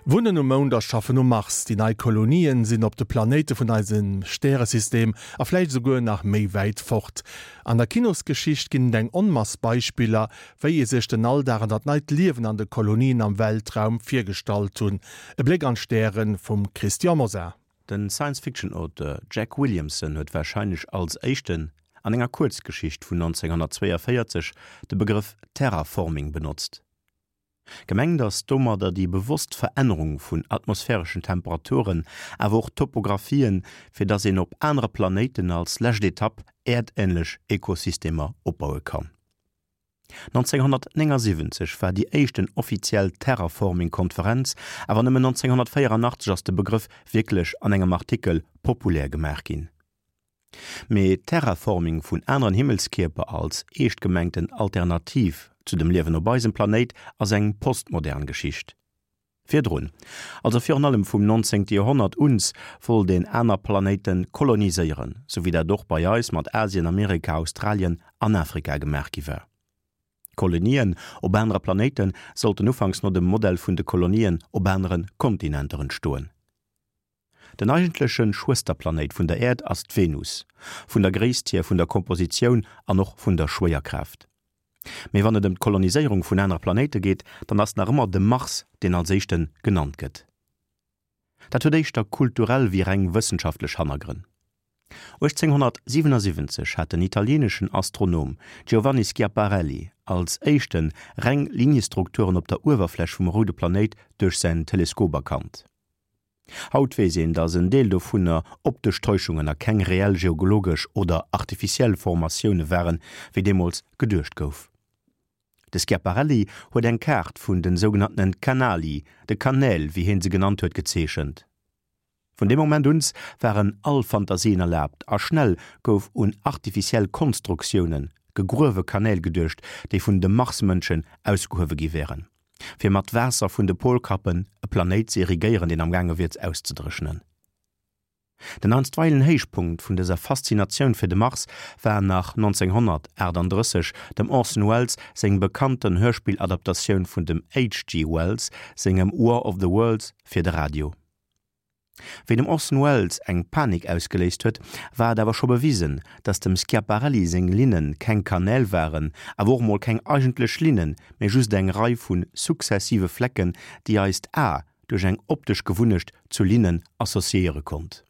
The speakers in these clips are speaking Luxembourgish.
Wunnen um Mound a schaffen um Mars, déi nei Kolonien sinn op de Planéite vun eisem Stäresystem a vläicht esouguer nach méi wäit fort. An der Kinosgeschicht ginn et eng Onmass Beispiller, wéi ee sech den Alldag an dat neit Liewen an de Kolonien am Weltraum virgestallt hunn. E Bléck an d'Stäre vum Christian Mosar. Den Science-Fiction-Auteur Jack Williamson huet warscheinlech als éischten an enger Kuerzgeschicht vun 1942 de Begrëff Terraforming benotzt. Gemengt ass domadder déi bewosst Verännerung vun atmosphäreschen Temperaturen, awer och Topographien, fir dass een op anere Planéiten als lescht Etapp äerdänlech Ekosystemer opbaue kann. 1979 war déi éischten offiziell Terraforming-Konferenz, awer nëmmen 1984 ass de Begrëff wierklech an engem Artikel populär gemaach ginn. Mee Terraforming vun aneren Himmelskierper als eescht gemengten Alternativ zu dem Liewen op eisem Planéit ass eng postmodern Geschicht. Virdrun, also virun allem vum 19. Joerhonnert uns, wollt een aner Planéite koloniséieren, sou wéi dat och bei eis mat Asien, Amerika, Australien an Afrika gemaach gi war. Kolonien op anere Planéite sollten ufanks no dem Modell vun de Kolonien op anere Kontinenter entstoen. Den eigentleche Schwësterplanéit vun der Äerd ass d'Venus, vun der Gréisst hier, vun der Kompositioun an och vun der Schwéierkraaft. Mee wann et ëm d'Koloniséierung vun anere Planéite geet, dann ass nach ëmmer de Mars deen als éischte genannt gëtt. Dat huet éischter kulturell wéi reng wëssenschaftlech Hannergrënn. 1877 hat den italieeneschen Astronom Giovanni Schiaparelli als éischte reng Liniestrukturen op der Uewerfläch vum roude Planéit duerch säin Teleskop erkannt. Haut weess een, datt en Deel dovunner optesch Täuschungen a keng reell geologesch oder artificiell Formatioune waren, wéi deemools geduecht gouf. De Schiaparelli huet eng Kaart vun de sougenanntene Canali, de Kanäl, wéi hien se genannt huet, gezeechent. Vun deem Moment uns waren all Fantasien erlaabt a schnell gouf un artificiell Konstruktiounen, gegruewe Kanäl geduecht, déi vun de Marsmënschen ausgehuewe gi wären. fir mat Waasser vun de Polkappen e Planéit ze irrigéieren, deen amgaange wier auszedréchnen. Den einstweilen Héichpunkt vun dëser Faszinatioun fir de Mars war nach 1938 dem Orson Welles seng bekannten Hörspilladaptatioun vun dem HG. Wells sengem War of the Worlds fir de Radio. Wéi dem Orson Welles eng Panik ausgeléist huet, war et awer scho bewisen, datt dem Schiaparelli seng Linne keng Kanäl waren, awer och mol keng eigentlech Linnen, mee just eng Rei vu sukzessive Flecken, déi eist A duerch eng optesch Gewunnecht zu Linnen associéiere konnt.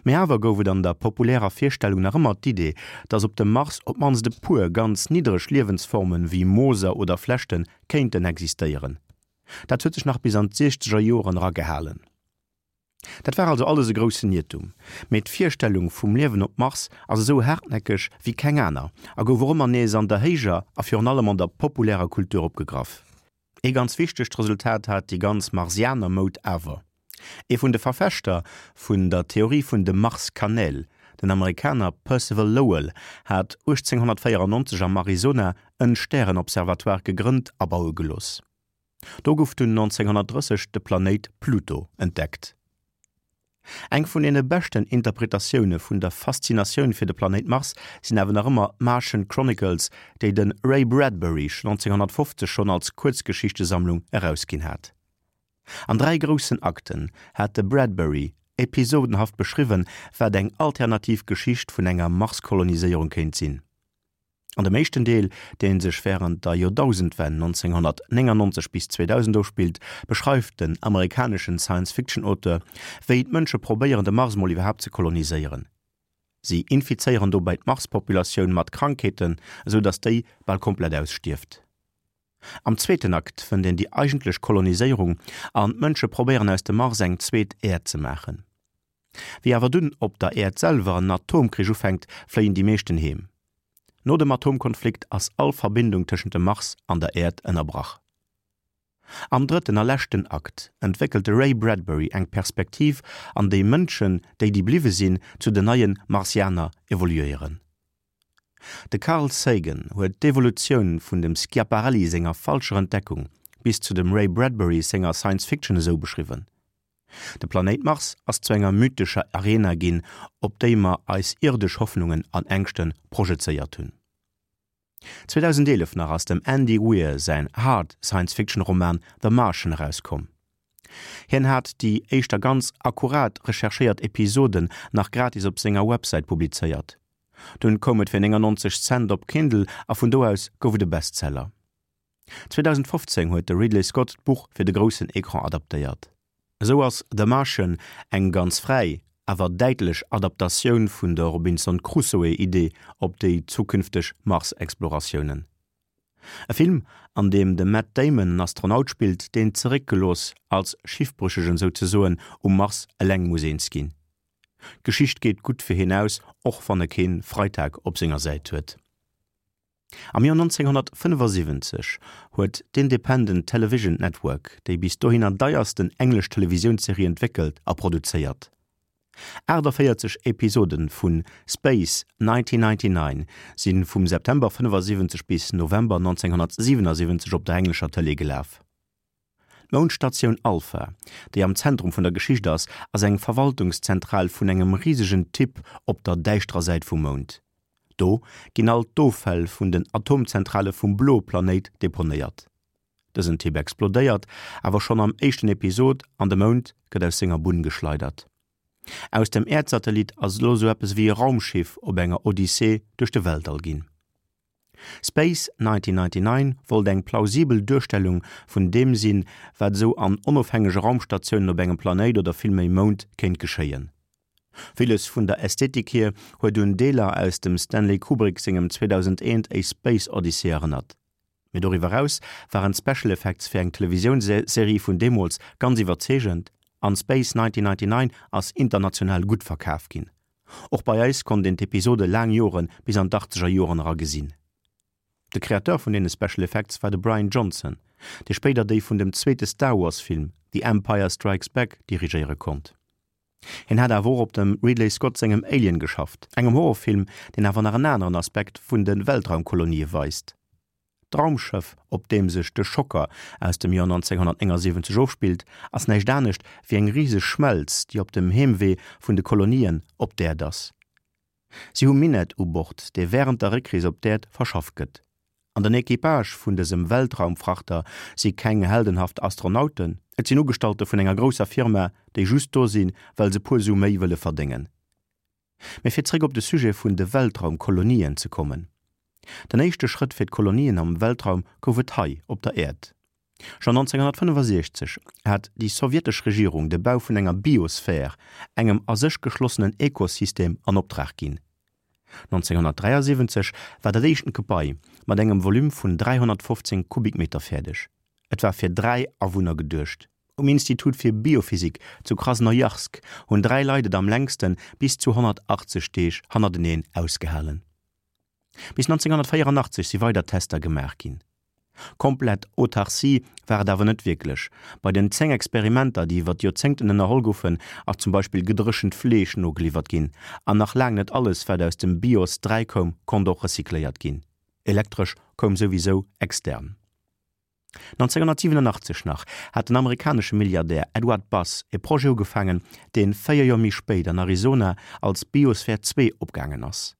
Mee awer gouf et an der populärer Virstellung nach ëmmer d'Idee, datt op dem Mars op d'mannst e puer ganz niddereg Liewensformen, wéi Mooser oder Flechten, kéinten existéieren. Dat huet sech nach bis an d'siechzeger Joren era gehalen. Dat war also alles e groussen Iertum. Mee d'Virstellung vum Liewen op Mars ass esou haartnäckeg wéi keng aner a gouf och ëmmer nees an der héijer a virun allem an der populärer Kultur opgegraff. Ee ganz wichtegt Resultat hat déi ganz Marsianer-Moud awer. Ee vun de Verfechter vun der Theorie vun de Marskanäl, den Amerikaner Percival Lowell, hat 1894 am Arizona en Stärenobservatoire gegrënnt a baue gelooss. Do gouf dunn 1930 de Planéit Pluto entdeckt. Eng vun deene beschten Interpretatioune vun der Faszinatioun fir de Planéit Mars sinn awer nach ëmmer d'Martian Chronicles, déi de Ray Bradbury 1950 schonn als Kuerzgeschichtesammlung erausginn hat. An 3 groussen Akten hat de Bradbury episodenhaft beschriwwen, wat eng alternativ Geschicht vun enger Marskoloniséierung kéint sinn. An dem éischten Deel, dee sech wärend der Joerdausendwenn 1999 bis 2000 ofspillt, beschreift den amerikaneschen Science-Fiction-Auteur, wéi d'Mënsche probéieren, de Mars mol iwwerhaapt ze koloniséieren. Si infizéieren dobäi d'Marspopulatioun mat Krankheeten, esou datt déi bal komplett ausstierft. Am zweeten Akt fënnt een déi eigentlech Koloniséierung an d'Mënsche probéieren aus dem Mars eng zweet Äerd ze maachen. Wéi awer dunn op der Äerd selwer en Atomkrich ufänkt, fléien déi meeschten heem. No dem Atomkonflikt ass all Verbindung tëschent dem Mars an der Äerd ënnerbrach. Am drëtten a leschten Akt entwéckelt de Ray Bradbury eng Perspektiv an déi Mënschen, déi déi bliwwe sinn, zu den neie Marsianer evoluéieren. De Carl Sagan huet d'Evolutioun vun dem Schiaparelli senger falscher Entdeckung bis zu dem Ray Bradbury senger Science Fiction esou beschriwwen, De Planéit Mars ass zu enger mythescher Arena ginn, op déi mer eis irdesch Hoffnungen an Ängschte projezéiert hunn. 2011 nach ass dem Andy Weir säin Hard Science-Fiction-Roman The Martian erauskomm. Hien hat déi éischter ganz akkurat recherchéiert Episoden nach gratis op senger Websäit publizéiert. Dunn koum et fir 99 Cent op Kindle a vun do aus gouf et e Bestseller. 2015 huet de Ridley Scott d'Buch fir de groussen Ecran adaptéiert. Esou ass The Martian eng ganz fräi, awer däitlech Adaptatioun vun der Robinson Crusoe-Idee op déi zukünfteg Mars-Exploratiounen. E Film, an deem de Matt Damon en Astronaut spillt, deen zeréckgelooss, als Schiffbrüchegen souzesoen, um Mars eleng muss eens ginn. D'Geschicht geet gutt fir hien aus, och wann e kee Freitag op senger Säit huet. Am Joer 1975 huet d'Independent Television Network déi bis dohinner deiersten englesch Televisiounsserie entwéckelt a produzéiert. 48 Episode vu Space 1999 si vum September 75 bis November 1977 op der englescher Tëlee gelaf. D'Moundstatioun Alpha, déi am Zentrum vun der Geschicht ass, ass eng Verwaltungszentral vun engem risegen Typ op der däischterer Säit vum Mound. Do ginn all d'Offäll vun den Atomzentrale vum bloe Planéit deponéiert. Dësen Typ explodéiert awer schonn am éischten Episod an de Mound gëtt aus senger Bunn geschleidert. Aus dem Äerdsatellit ass elo sou eppes ewéi e Raumschiff op enger Odyssee duerch de Weltall ginn. Space 1999 wollt eng plausibel Duerstellung vun deem sinn, wat esou an onofhängege Raumstatiounen op engem Planéit oder villméi Mound kéint geschéien. Villes vun der Ästhetik hier huet un Deeler aus dem Stanley Kubrick sengem 2001, A Space Odyssey erënnert. Mee doriwwer eraus waren d'Special Effects fir eng Televisiounsserie vun deemools ganz iwwerzeegend an Space 1999 ass international gutt verkaf ginn. Och bei eis konnt een d'Episode laang Jore bis an d'Achtzeger Joren era gesinn. De Créateur vun deene Special Effects war de Brian Johnson, dee spéider déi vun dem zweete Star Wars Film The Empire Strikes Back dirigéiere konnt. Hien hat awer och op dem Ridley Scott sengem Alien geschafft, engem Horrorfilm, deen awer nach en aneren Aspekt vun de Weltraumkolonië weist. D'Raumschëff, op deem sech de Schocker aus dem Joer 1979 ofspillt, ass näischt anescht wéi eng riseg Schmelz, déi op dem Heemwee vun de Kolonien op d'Äerd ass. Si hu Minett u Bord, dee wärend der Réckrees op d'Äerd verschafft gëtt. An den Equipage vun dësem Weltraumfrachter si keng heldenhaft Astronauten, et sinn Ugestallte vun enger grousser Firma, déi just do sinn, well se puer Su méi wëlle verdéngen. Mee fir zréck op de Sujet vun de Weltraumkolonien ze kommen, Den éischte Schrëtt fir d'Kolonien am Weltraum gouf et hei op der Äerd. Schonn 1965 hat déi sowjetesch Regierung de Bau vun enger Biosphär, engem a sech geschlossenen Ekosystem, an Optrag ginn. 1973 war dat éischten Gebai mat engem Volume vun 315 Kubikmeter fäerdeg. Et war fir 3 Awunner geduecht. Um Institut fir Biophysik zu Krasnojarsk hunn 3 Leit et am längsten, bis zu 180 Deeg hannerteneen ausgehalen. Bis 1984 si weider Tester gemaach ginn. Komplett Autarcie war et awer net wierklech. Bei den 10 Experimenter, déi iwwer d'Joerzéngten ënnerholl goufen, ass zum Beispill gedréchent Fleesch nogeliwwert ginn an nach laang net alles, wat aus dem Bios 3 koum, konnt och recycléiert ginn. Elektresch koum souwisou extern. 1987 nach hat den amerikanesche Milliardär Edward Bass e Projet ugefaangen, dee 4 Joer méi spéit an Arizona als Biosphere 2 opgaangen ass,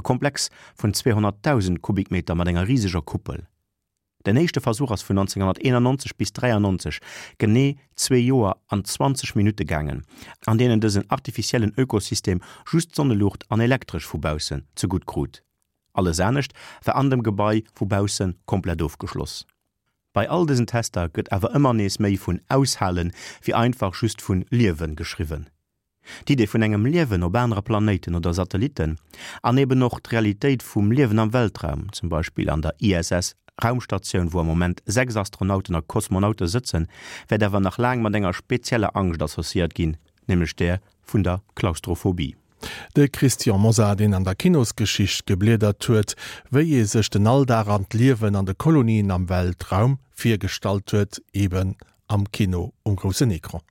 e Komplex vun 200.000 Kubikmeter mat enger riseger Kuppel. Den éischte Versuch ass vun 1991 bis 93, genee zwee Joer an 20 Minutte gaangen, an deenen dësen artificiellen Ökosystem just Sonneluucht an Elektresch vu baussen zegutt krut. Alles anescht war an dem Gebai vu bausse komplett ofgeschloss. Bei all dësen Tester gëtt awer ëmmer nees méi vun Aushalen wéi einfach just vun Liewen geschriwwen. D'Idee vun engem Liewen op anere Planéiten oder Satellitten an eben och d'Realitéit vum Liewen am Weltraum, zum Beispill an der ISS Raumstatioun, wou am Moment 6 Astronauten a Kosmonaute sëtzen, wäert awer nach laang mat enger spezieller Angscht associéiert ginn, nämlech där vun der Klaustrophobie. De Christian Mosar, deen an der Kinosgeschicht gebliedert huet, wéi ee sech den Alldag an d'Liewen an de Kolonien am Weltraum virgestallt huet, eben am Kino um groussen Ecran.